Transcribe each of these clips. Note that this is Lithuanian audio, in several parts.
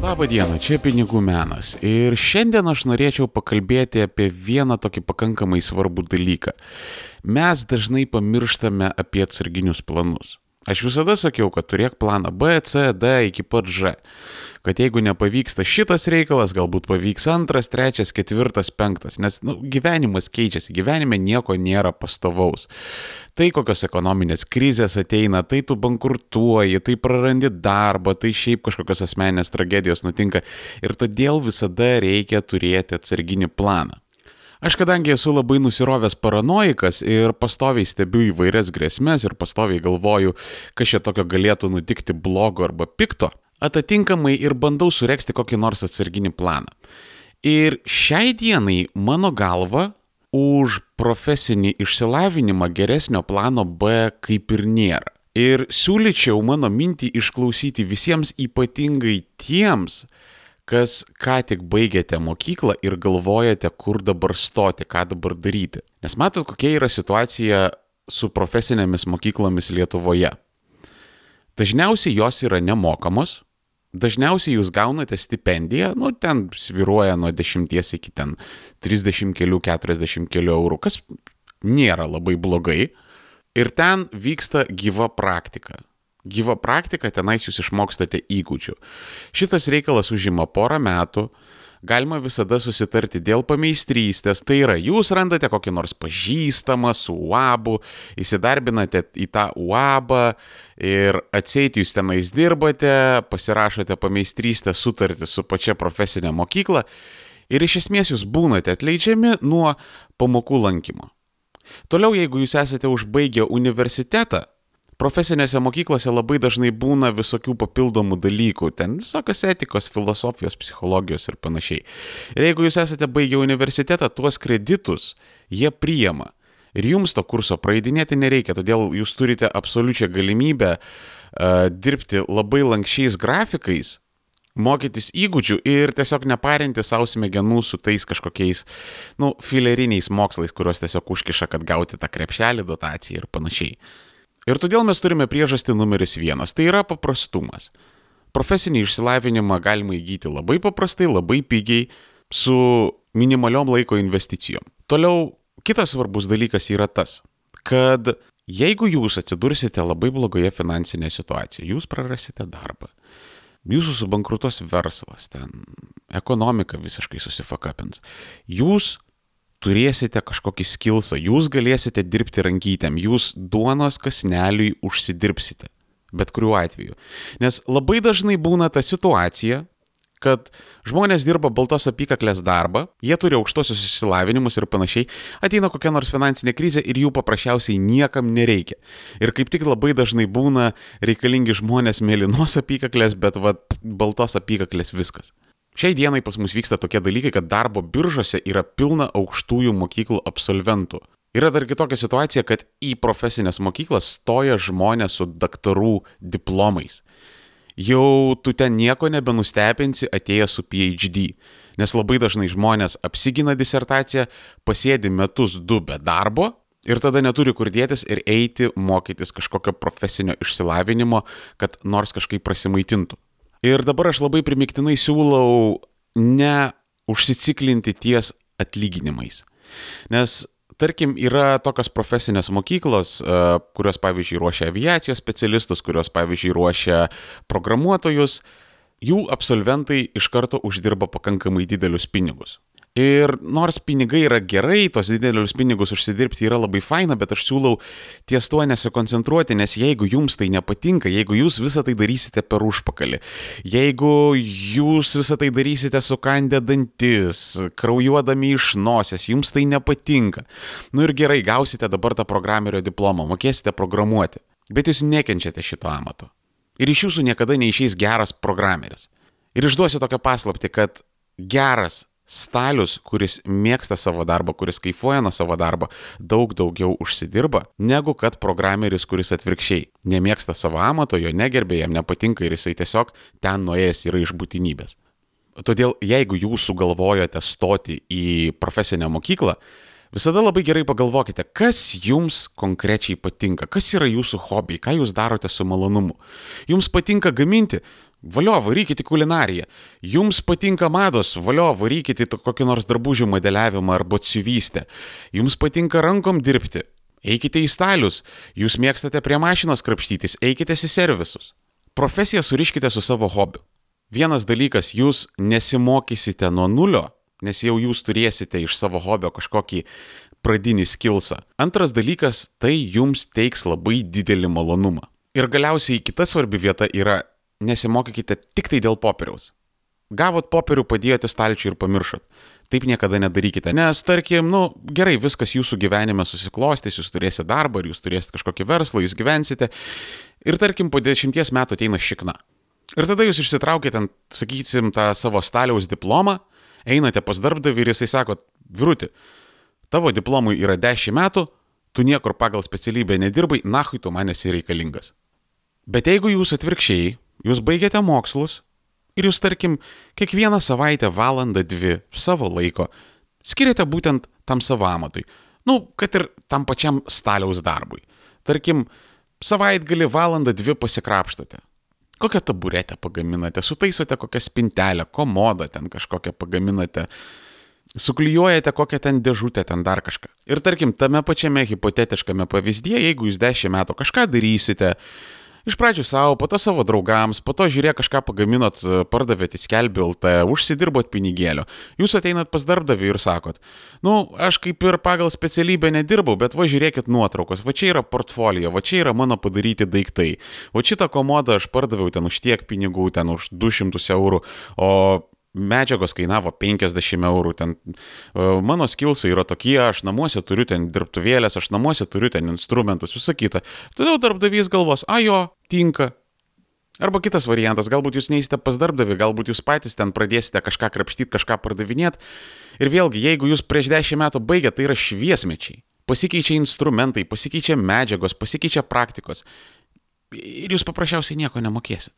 Labą dieną, čia Pinigų menas ir šiandien aš norėčiau pakalbėti apie vieną tokį pakankamai svarbų dalyką. Mes dažnai pamirštame apie atsarginius planus. Aš visada sakiau, kad turėk planą B, C, D iki pat Ž. Kad jeigu nepavyksta šitas reikalas, galbūt pavyks antras, trečias, ketvirtas, penktas. Nes gyvenimas keičiasi, gyvenime nieko nėra pastovaus. Tai kokios ekonominės krizės ateina, tai tu bankrutuoji, tai prarandi darbą, tai šiaip kažkokios asmeninės tragedijos nutinka. Ir todėl visada reikia turėti atsarginį planą. Aš kadangi esu labai nusirovęs paranoikas ir pastoviai stebiu įvairias grėsmes ir pastoviai galvoju, kas čia tokio galėtų nutikti blogo arba pikto, atitinkamai ir bandau suregzti kokį nors atsarginį planą. Ir šiai dienai mano galva už profesinį išsilavinimą geresnio plano B kaip ir nėra. Ir siūlyčiau mano mintį išklausyti visiems, ypatingai tiems, kas ką tik baigėte mokyklą ir galvojate, kur dabar stoti, ką dabar daryti. Nes matot, kokia yra situacija su profesinėmis mokyklomis Lietuvoje. Dažniausiai jos yra nemokamos, dažniausiai jūs gaunate stipendiją, ten svyruoja nuo 10 iki 30 kelių, 40 kelių eurų, kas nėra labai blogai. Ir ten vyksta gyva praktika. Gyva praktika, tenais jūs išmokstate įgūdžių. Šitas reikalas užima porą metų, galima visada susitarti dėl pameistrystės, tai yra, jūs randate kokį nors pažįstamą su UABu, įsidarbinate į tą UABą ir atseit jūs tenais dirbate, pasirašote pameistrystės sutartį su pačia profesinė mokykla ir iš esmės jūs būnate atleidžiami nuo pamokų lankymo. Toliau, jeigu jūs esate užbaigę universitetą, profesinėse mokyklose labai dažnai būna visokių papildomų dalykų, ten visokios etikos, filosofijos, psichologijos ir panašiai. Ir jeigu jūs esate baigę universitetą, tuos kreditus jie priima. Ir jums to kurso praeidinėti nereikia, todėl jūs turite absoliučią galimybę dirbti labai lankščiais grafikais, mokytis įgūdžių ir tiesiog neparinti savo smegenų su tais kažkokiais, fileriniais mokslais, kuriuos tiesiog užkiša, kad gauti tą krepšelį, dotaciją ir panašiai. Ir todėl mes turime priežastį numeris 1, tai yra paprastumas. Profesinį išsilavinimą galima įgyti labai paprastai, labai pigiai, su minimaliom laiko investicijom. Toliau, kitas svarbus dalykas yra tas, kad jeigu jūs atsidursite labai blogoje finansinėje situacijoje, jūs prarasite darbą, jūsų subankrutos verslas, ekonomika visiškai susifakapins, jūs turėsite kažkokį skilsą, jūs galėsite dirbti rankytėm, jūs duonos kąsneliui užsidirbsite, bet kuriuo atveju. Nes labai dažnai būna ta situacija, kad žmonės dirba baltos apykaklės darbą, jie turi aukštosius išsilavinimus ir panašiai, ateina kokia nors finansinė krizė ir jų paprasčiausiai niekam nereikia. Ir kaip tik labai dažnai būna reikalingi žmonės mėlynos apykaklės, bet baltos apykaklės viskas. Šiai dienai pas mus vyksta tokie dalykai, kad darbo biržose yra pilna aukštųjų mokyklų absolventų. Yra dar kitokia situacija, kad į profesinės mokyklas stoja žmonės su daktarų diplomais. Jau tu ten nieko nebenustebinsi atėjęs su PhD, nes labai dažnai žmonės apsigina disertaciją, pasėdi metus 2 be darbo ir tada neturi kur dėtis ir eiti mokytis kažkokio profesinio išsilavinimo, kad nors kažkaip prasimaitintų. Ir dabar aš labai primiktinai siūlau ne užsiciklinti ties atlyginimais. Nes, tarkim, yra tokios profesinės mokyklos, kurios, pavyzdžiui, ruošia aviacijos specialistus, kurios, pavyzdžiui, ruošia programuotojus, jų absolventai iš karto uždirba pakankamai didelius pinigus. Ir nors pinigai yra gerai, tos didelius pinigus užsidirbti yra labai faina, bet aš siūlau ties tuo nesikoncentruoti, nes jeigu jums tai nepatinka, jeigu jūs visą tai darysite per užpakalį, jeigu jūs visą tai darysite sukandę dantis, kraujuodami iš nosies, jums tai nepatinka, ir gerai, gausite dabar tą programerio diplomą, mokėsite programuoti, bet jūs nekenčiate šito amato. Ir iš jūsų niekada neišeis geras programeris. Ir išduosiu tokią paslaptį, kad geras stalius, kuris mėgsta savo darbą, kuris kaifuoja nuo savo darbo, daug daugiau užsidirba, negu kad programeris, kuris atvirkščiai nemėgsta savo amato, jo negerbė, jam nepatinka ir jisai tiesiog ten nuėjęs yra iš būtinybės. Todėl, jeigu jūs sugalvojote stoti į profesinę mokyklą, visada labai gerai pagalvokite, kas jums konkrečiai patinka, kas yra jūsų hobiai, ką jūs darote su malonumu. Jums patinka gaminti? Valio, varykite į kulinariją. Jums patinka mados, valio, varykite į kokį nors drabužių modeliavimą arba batsiuvystę. Jums patinka rankom dirbti. Eikite į stalius. Jūs mėgstate prie mašinos krapštytis, eikite į servisus. Profesiją suriškite su savo hobiu. Vienas dalykas, jūs nesimokysite nuo nulio, nes jau jūs turėsite iš savo hobio kažkokį pradinį skillsą. Antras dalykas, tai jums teiks labai didelį malonumą. Ir galiausiai kita svarbi vieta yra, nesimokykite tik tai dėl popieriaus. Gavot popierių, padėjote stalčiui ir pamiršot. Taip niekada nedarykite, nes tarkim, gerai, viskas jūsų gyvenime susiklostys, jūs turėsite darbą, jūs turėsite kažkokį verslą, jūs gyvensite ir tarkim po 10 metų ateina šikna. Ir tada jūs išsitraukite, sakysim, tą savo staliaus diplomą, einate pas darbdavį ir jisai sako, vyruti, tavo diplomui yra 10 metų, tu niekur pagal specialybę nedirbai, nahui tu man esi reikalingas. Bet jeigu jūs atvirkščiai, jūs baigiate mokslus ir jūs, tarkim, kiekvieną savaitę valandą 2 savo laiko skiriate būtent tam savo amatui. Kad ir tam pačiam staliaus darbui. Tarkim, savaitgalį valandą 2 pasikrapštote. Kokią taburetę pagaminate, sutaisote kokią spintelę, komodą ten kažkokią pagaminate, suklijuojate kokią ten dėžutę, ten dar kažką. Ir tarkim, tame pačiame hipotetiškame pavyzdyje, jeigu jūs 10 metų kažką darysite, iš pradžių savo, po to savo draugams, po to žiūrėk kažką pagaminot, pardavėt į Skelbiu LT, užsidirbot pinigėlio. Jūs ateinat pas darbdavį ir sakot, aš kaip ir pagal specialybę nedirbau, bet va žiūrėkit nuotraukos, va čia yra portfolio, va čia yra mano padaryti daiktai. Va šitą komodą aš pardaviau ten už tiek pinigų, ten už 200 eurų, o medžiagos kainavo 50 eurų, ten mano skillsai yra tokie, aš namuose turiu ten dirbtuvėlės, aš namuose turiu ten instrumentus, visą kitą. Todėl darbdavys galvos, jo, tinka. Arba kitas variantas, galbūt jūs neįsite pas darbdavį, galbūt jūs patys ten pradėsite kažką krapštyti, kažką pardavinėti. Ir vėlgi, jeigu jūs prieš 10 metų baigėte, tai yra šviesmečiai. Pasikeičia instrumentai, pasikeičia medžiagos, pasikeičia praktikos. Ir jūs paprasčiausiai nieko nemokėsit.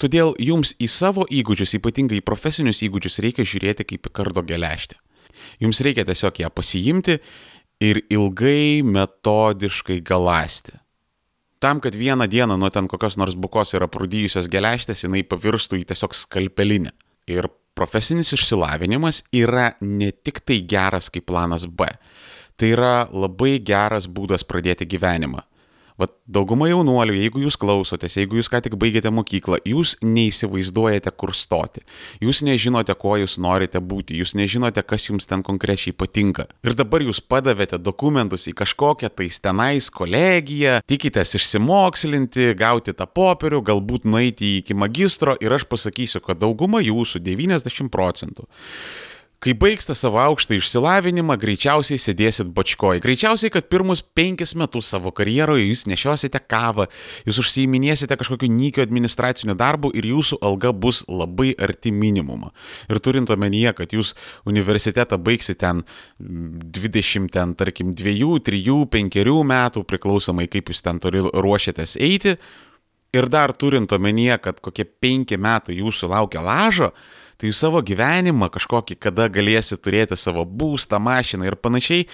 Todėl jums į savo įgūdžius, ypatingai į profesinius įgūdžius, reikia žiūrėti kaip į kardo geležtę. Jums reikia tiesiog ją pasiimti ir ilgai metodiškai galąsti. Tam, kad vieną dieną nuo ten kokios nors bukos yra prūdijusios geležtės, jinai pavirstų į tiesiog skalpelinę. Ir profesinis išsilavinimas yra ne tik tai geras kaip planas B. Tai yra labai geras būdas pradėti gyvenimą. Dauguma jaunuolių, jeigu jūs klausotės, jeigu jūs ką tik baigėte mokyklą, jūs neįsivaizduojate, kur stoti. Jūs nežinote, ko jūs norite būti, jūs nežinote, kas jums ten konkrečiai patinka. Ir dabar jūs padavėte dokumentus į kažkokią tais tenais kolegiją, tikitės išsimokslinti, gauti tą popierių, galbūt nueiti iki magistro ir aš pasakysiu, kad dauguma jūsų, 90%, kai baigsite savo aukštą išsilavinimą, greičiausiai sėdėsit bačkoj. Greičiausiai, kad pirmus 5 metus savo karjeroje jūs nešiosite kavą, jūs užsiiminėsite kažkokiu nykiu administraciniu darbu ir jūsų alga bus labai arti minimumo. Ir turint omenyje, kad jūs universitetą baigsite ten 20, ten, tarkim, 2, 3, 5 metų, priklausomai kaip jūs ten ruošiatės eiti, ir dar turint omenyje, kad kokie 5 metai jūsų laukia lažo, tai jūs savo gyvenimą kažkokį, kada galėsite turėti savo būstą, mašiną ir panašiai,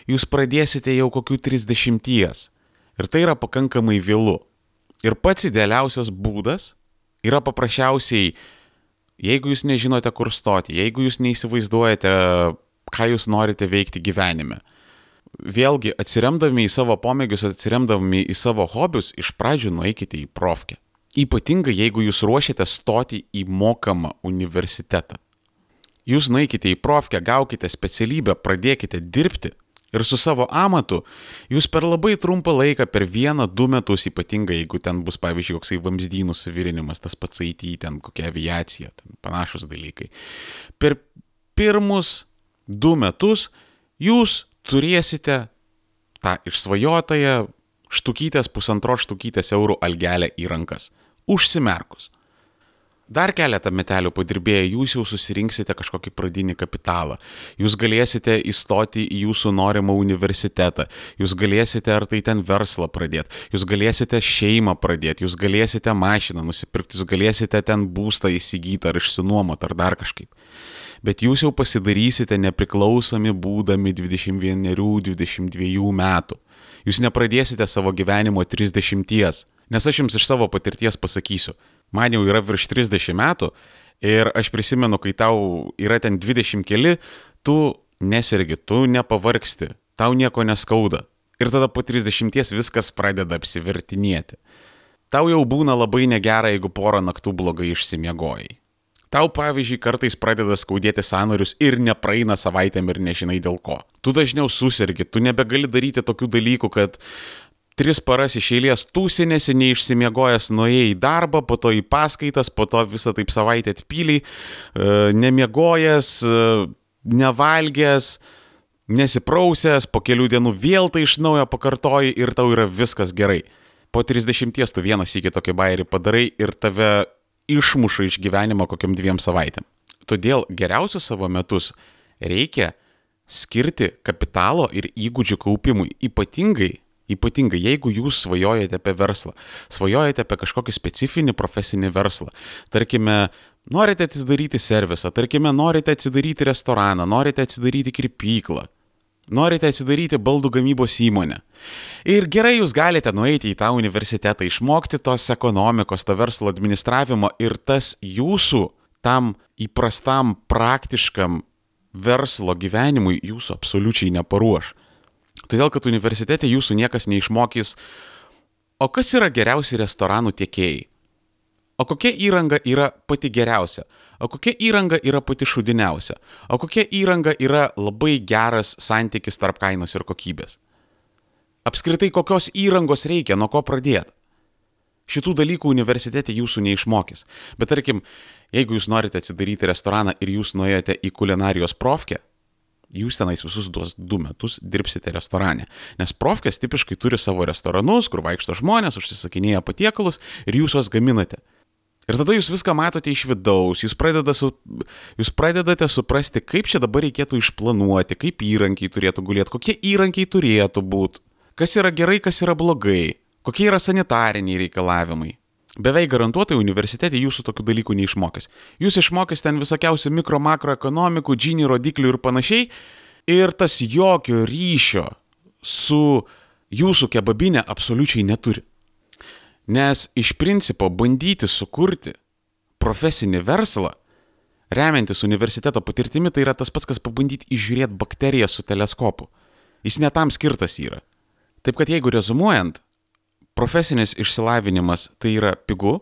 jūs pradėsite jau kokių 30. Ir tai yra pakankamai vėlu. Ir pats idealiausias būdas yra paprasčiausiai, jeigu jūs nežinote, kur stoti, jeigu jūs neįsivaizduojate, ką jūs norite veikti gyvenime. Vėlgi, atsiremdami į savo pomėgius, atsiremdami į savo hobius, iš pradžių nueikite į profkę. Ypatingai, jeigu jūs ruošiate stoti į mokamą universitetą. Jūs nueikite į profkę, gaukite specialybę, pradėkite dirbti ir su savo amatu jūs per labai trumpą laiką, per 1-2 metus, ypatingai jeigu ten bus, pavyzdžiui, koksai vamzdynų suvirinimas, tas pats IT, ten kokia aviacija, ten panašus dalykai. Per pirmus 2 metus jūs turėsite tą išsvajotąją štukytės, 1,5 štukytės eurų algelę į rankas. Užsimerkus. Dar keletą metelių padirbėję, jūs jau susirinksite kažkokį pradinį kapitalą. Jūs galėsite įstoti į jūsų norimą universitetą. Jūs galėsite ar tai ten verslą pradėti. Jūs galėsite šeimą pradėti. Jūs galėsite mašiną nusipirkti. Jūs galėsite ten būstą įsigyti ar išsinuomoti ar dar kažkaip. Bet jūs jau pasidarysite nepriklausomi būdami 21-22 metų. Jūs nepradėsite savo gyvenimo 30. Nes aš jums iš savo patirties pasakysiu, Man jau yra virš 30 metų ir aš prisimenu, kai tau yra ten 20 keli, tu nesergi, tu nepavargsti, tau nieko neskauda. Ir tada po 30 viskas pradeda apsivertinėti. Tau jau būna labai negera, jeigu porą naktų blogai išsimiegojai. Tau, pavyzdžiui, kartais pradeda skaudėti sąnarius ir nepraeina savaitėm ir nežinai dėl ko. Tu dažniau susergi, tu nebegali daryti tokių dalykų, kad 3 paras iš eilės tūsinėsi, neišsimiegojęs, nuėjai į darbą, po to į paskaitas, po to visą taip savaitę atpyliai, nemiegojęs, nevalgęs, nesiprausęs, po kelių dienų vėl tai iš naujo pakartoji ir tau yra viskas gerai. Po 30 tu vieną sykį tokį bairį padarai ir tave išmuša iš gyvenimo kokiam 2 savaitėm. Todėl geriausius savo metus reikia skirti kapitalo ir įgūdžių kaupimui. Ypatingai, jeigu jūs svajojate apie verslą, svajojate apie kažkokį specifinį profesinį verslą, tarkime, norite atsidaryti servisą, tarkime, norite atsidaryti restoraną, norite atsidaryti kirpyklą, norite atsidaryti baldų gamybos įmonę. Ir gerai, jūs galite nueiti į tą universitetą, išmokti tos ekonomikos, to verslo administravimo ir tas jūsų tam įprastam praktiškam verslo gyvenimui jūsų absoliučiai neparuoš. Todėl, kad universitete jūsų niekas neišmokys, o kas yra geriausi restoranų tiekėjai, o kokia įranga yra pati geriausia, o kokia įranga yra pati šūdiniausia, o kokia įranga yra labai geras santykis tarp kainos ir kokybės. Apskritai, kokios įrangos reikia, nuo ko pradėti. Šitų dalykų universitete jūsų neišmokys. Bet tarkim, jeigu jūs norite atsidaryti restoraną ir jūs nuėjote į kulinarijos profkę, jūs tenais visus 2 metus dirbsite restorane. Nes profkės tipiškai turi savo restoranus, kur vaikšto žmonės, užsisakinėja patiekalus ir jūs juos gaminate. Ir tada jūs viską matote iš vidaus, jūs pradedate suprasti, kaip čia dabar reikėtų išplanuoti, kaip įrankiai turėtų gulėti, kokie įrankiai turėtų būti, kas yra gerai, kas yra blogai, kokie yra sanitariniai reikalavimai. Beveik garantuotai universitete jūsų tokių dalykų neišmokys. Jūs išmokys ten visokiausių mikro-makroekonomikų, Gini rodiklių ir panašiai, ir tas jokio ryšio su jūsų kebabinė absoliučiai neturi. Nes iš principo bandyti sukurti profesinį verslą, remiantis universiteto patirtimi, tai yra tas pats, kas pabandyti įžiūrėti bakteriją su teleskopu. Jis ne tam skirtas yra. Taip kad jeigu rezumuojant, profesinis išsilavinimas tai yra pigu,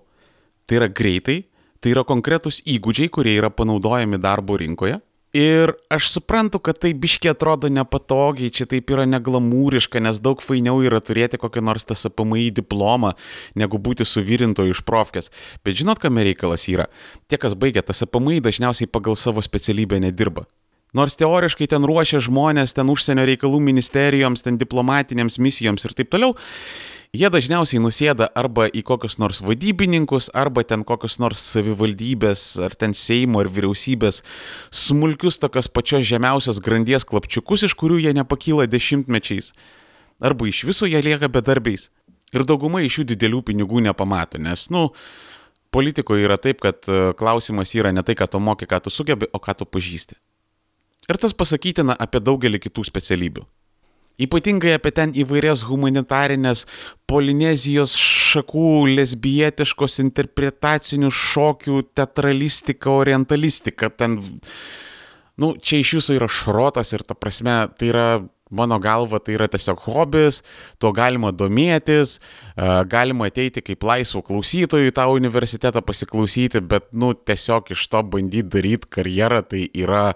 tai yra greitai, tai yra konkretūs įgūdžiai, kurie yra panaudojami darbo rinkoje. Ir aš suprantu, kad tai biškiai atrodo nepatogiai, čia taip yra neglamūriška, nes daug fainiau yra turėti kokią nors TSPMI diplomą, negu būti suvirintoju iš profkės. Bet žinot, kame reikalas yra? Tie, kas baigia TSPMI, dažniausiai pagal savo specialybę nedirba. Nors teoriškai ten ruošia žmonės, ten užsienio reikalų ministerijoms, ten diplomatinėms misijoms ir taip toliau, jie dažniausiai nusėda arba į kokius nors vadybininkus, arba ten kokius nors savivaldybės, ar ten Seimo, ar vyriausybės smulkius tokios pačios žemiausios grandies klapčiukus, iš kurių jie nepakyla dešimtmečiais, arba iš viso jie lieka bedarbiais. Ir dauguma iš jų didelių pinigų nepamato, nes, politikoje yra taip, kad klausimas yra ne tai, ką tu moki, ką tu sugebi, o ką tu pažįsti. Ir tas pasakytina apie daugelį kitų specialybių. Ypatingai apie ten įvairias humanitarinės Polinezijos šakų, lesbietiškos interpretacinių šokių, teatralistiką, orientalistiką. Ten, čia iš viso yra šrotas ir ta prasme, tai yra, mano galva, tai yra tiesiog hobis, tuo galima domėtis, galima ateiti kaip laisvų klausytojų į tą universitetą pasiklausyti, bet, tiesiog iš to bandyti daryti karjerą, tai yra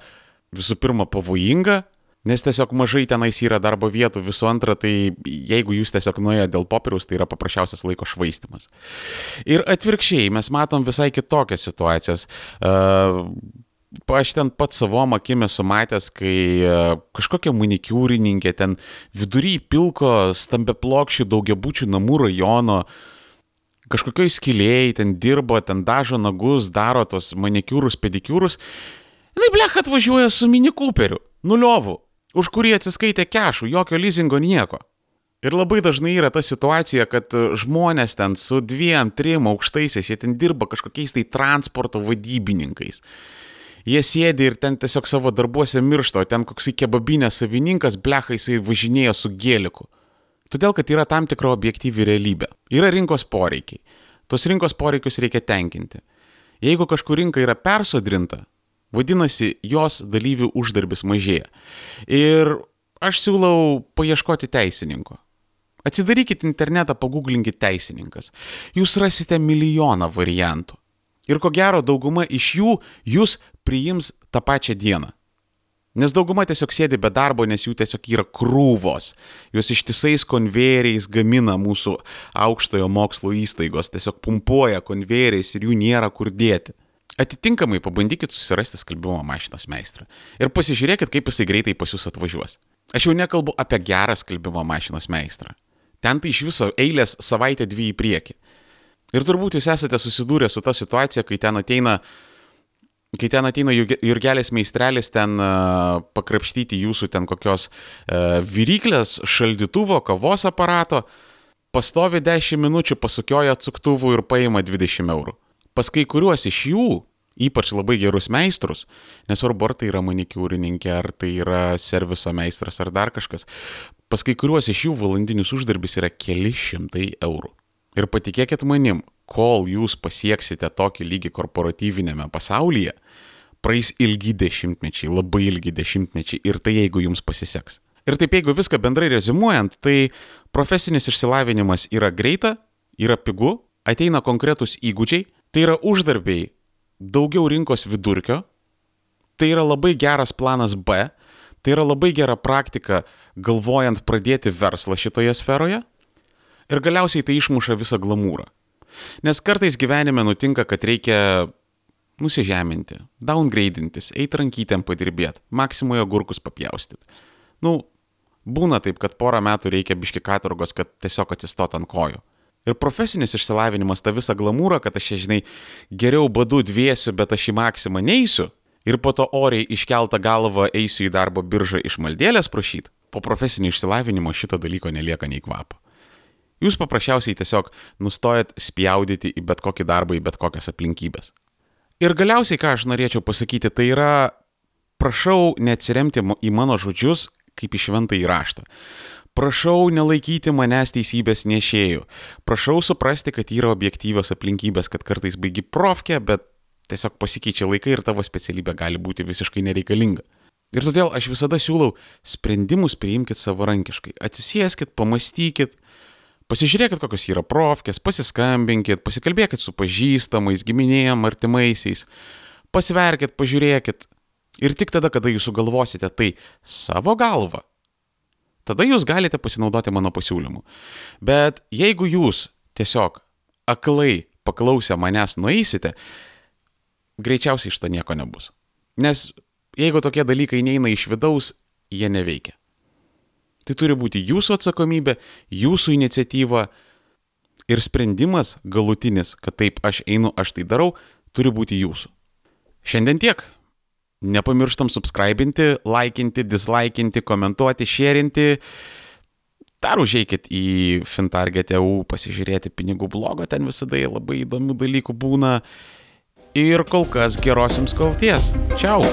visų pirma pavojinga, nes tiesiog mažai tenais yra darbo vietų, visų antra, tai jeigu jūs tiesiog nuėjote dėl popieriaus, tai yra paprasčiausias laiko švaistymas. Ir atvirkščiai, mes matom visai kitokias situacijas. Aš ten pats savom akim esu matęs, kai kažkokia manikiūrininkė ten vidury pilko stambiaplokščių daugiabučių namų rajono, kažkokioj skylėjai ten dirbo, ten dažo nagus, daro tos manikiūrus, pedikiūrus. Jinai blech atvažiuoja su Mini Cooperiu, nuliovų, už kurį atsiskaitė kešų, jokio leasingo, nieko. Ir labai dažnai yra ta situacija, kad žmonės ten su 2-3 aukštaisiais, jie ten dirba kažkokiais tai transporto vadybininkais. Jie sėdi ir ten tiesiog savo darbuose miršta, o ten koksai kebabinės savininkas, blecha, jisai važinėja su gėliku. Todėl, kad yra tam tikra objektyvi realybė. Yra rinkos poreikiai. Tos rinkos poreikius reikia tenkinti. Jeigu kažkur rinka yra persodrinta, vadinasi, jos dalyvių uždarbis mažėja. Ir aš siūlau paieškoti teisininko. Atsidarykite internetą, pagooglinkite teisininkas. Jūs rasite milijoną variantų. Ir ko gero, dauguma iš jų jūs priims tą pačią dieną. Nes dauguma tiesiog sėdi be darbo, nes jų tiesiog yra krūvos. Jos ištisais konvejeriais gamina mūsų aukštojo mokslo įstaigos, tiesiog pumpuoja konvejeriais ir jų nėra kur dėti. Atitinkamai pabandykit susirasti skalbimo mašinos meistrą. Ir pasižiūrėkit, kaip jisai greitai pas jūs atvažiuos. Aš jau nekalbu apie gerą skalbimo mašinos meistrą. Ten tai iš viso eilės savaitę 2 į priekį. Ir turbūt jūs esate susidūrę su ta situacija, kai ten ateina Jurgelis meistrelis ten pakrapštyti jūsų ten kokios viryklės, šaldytuvo, kavos aparato, pastovi 10 minučių, pasukioja atsuktuvų ir paima 20 eurų. Pas kai kuriuos iš jų, ypač labai gerus meistrus, nesvarbu ar tai yra manikiūrininkė, ar tai yra serviso meistras, ar dar kažkas, pas kai kuriuos iš jų valandinis uždarbis yra keli šimtai eurų. Ir patikėkit manim, kol jūs pasieksite tokį lygį korporatyvinėme pasaulyje, praeis ilgi dešimtmečiai, labai ilgi dešimtmečiai ir tai jeigu jums pasiseks. Ir taip jeigu viską bendrai reziumuojant, tai profesinis išsilavinimas yra greita, yra pigu, ateina konkretus įgūdžiai, tai yra uždarbiai daugiau rinkos vidurkio, tai yra labai geras planas B, tai yra labai gera praktika galvojant pradėti verslą šitoje sferoje ir galiausiai tai išmuša visą glamūrą. Nes kartais gyvenime nutinka, kad reikia nusižeminti, downgradintis, eiti rankytėm padirbėti, maksimoje agurkus papjaustyti. Būna taip, kad porą metų reikia biški katorgos, kad tiesiog atsistot ant kojų. Ir profesinis išsilavinimas tą visą glamūrą, kad aš, geriau badu dviesiu, bet aš į maksimą neisiu ir po to oriai iškeltą galvą eisiu į darbo biržą iš maldėlės prašyti, po profesinio išsilavinimo šito dalyko nelieka nei kvapo. Jūs paprasčiausiai tiesiog nustojat spjaudyti į bet kokį darbą, į bet kokias aplinkybės. Ir galiausiai, ką aš norėčiau pasakyti, tai yra, prašau neatsiremti į mano žodžius kaip į šventąjį raštą. Prašau nelaikyti manęs teisybės nešėjų. Prašau suprasti, kad yra objektyvios aplinkybės, kad kartais baigi profkę, bet tiesiog pasikeičia laikai ir tavo specialybė gali būti visiškai nereikalinga. Ir todėl aš visada siūlau sprendimus priimkit savarankiškai. Atsisėskit, pamastykit, pasižiūrėkit, kokios yra profkės, pasiskambinkit, pasikalbėkit su pažįstamais, giminėjom, artimaisiais, pasverkit, pažiūrėkit. Ir tik tada, kada jūs sugalvosite tai savo galvą, tada jūs galite pasinaudoti mano pasiūlymu. Bet jeigu jūs tiesiog aklai paklausę manęs nueisite, greičiausiai iš to nieko nebus. Nes jeigu tokie dalykai neina iš vidaus, jie neveikia. Tai turi būti jūsų atsakomybė, jūsų iniciatyva ir sprendimas galutinis, kad taip aš einu, aš tai darau, turi būti jūsų. Šiandien tiek. Nepamirštam subscribinti, laikinti, dislaikinti, komentuoti, šėrinti. Dar užeikit į Fintarget.eu pasižiūrėti pinigų blogą, ten visada labai įdomių dalykų būna. Ir kol kas geros jums kloties. Čiau!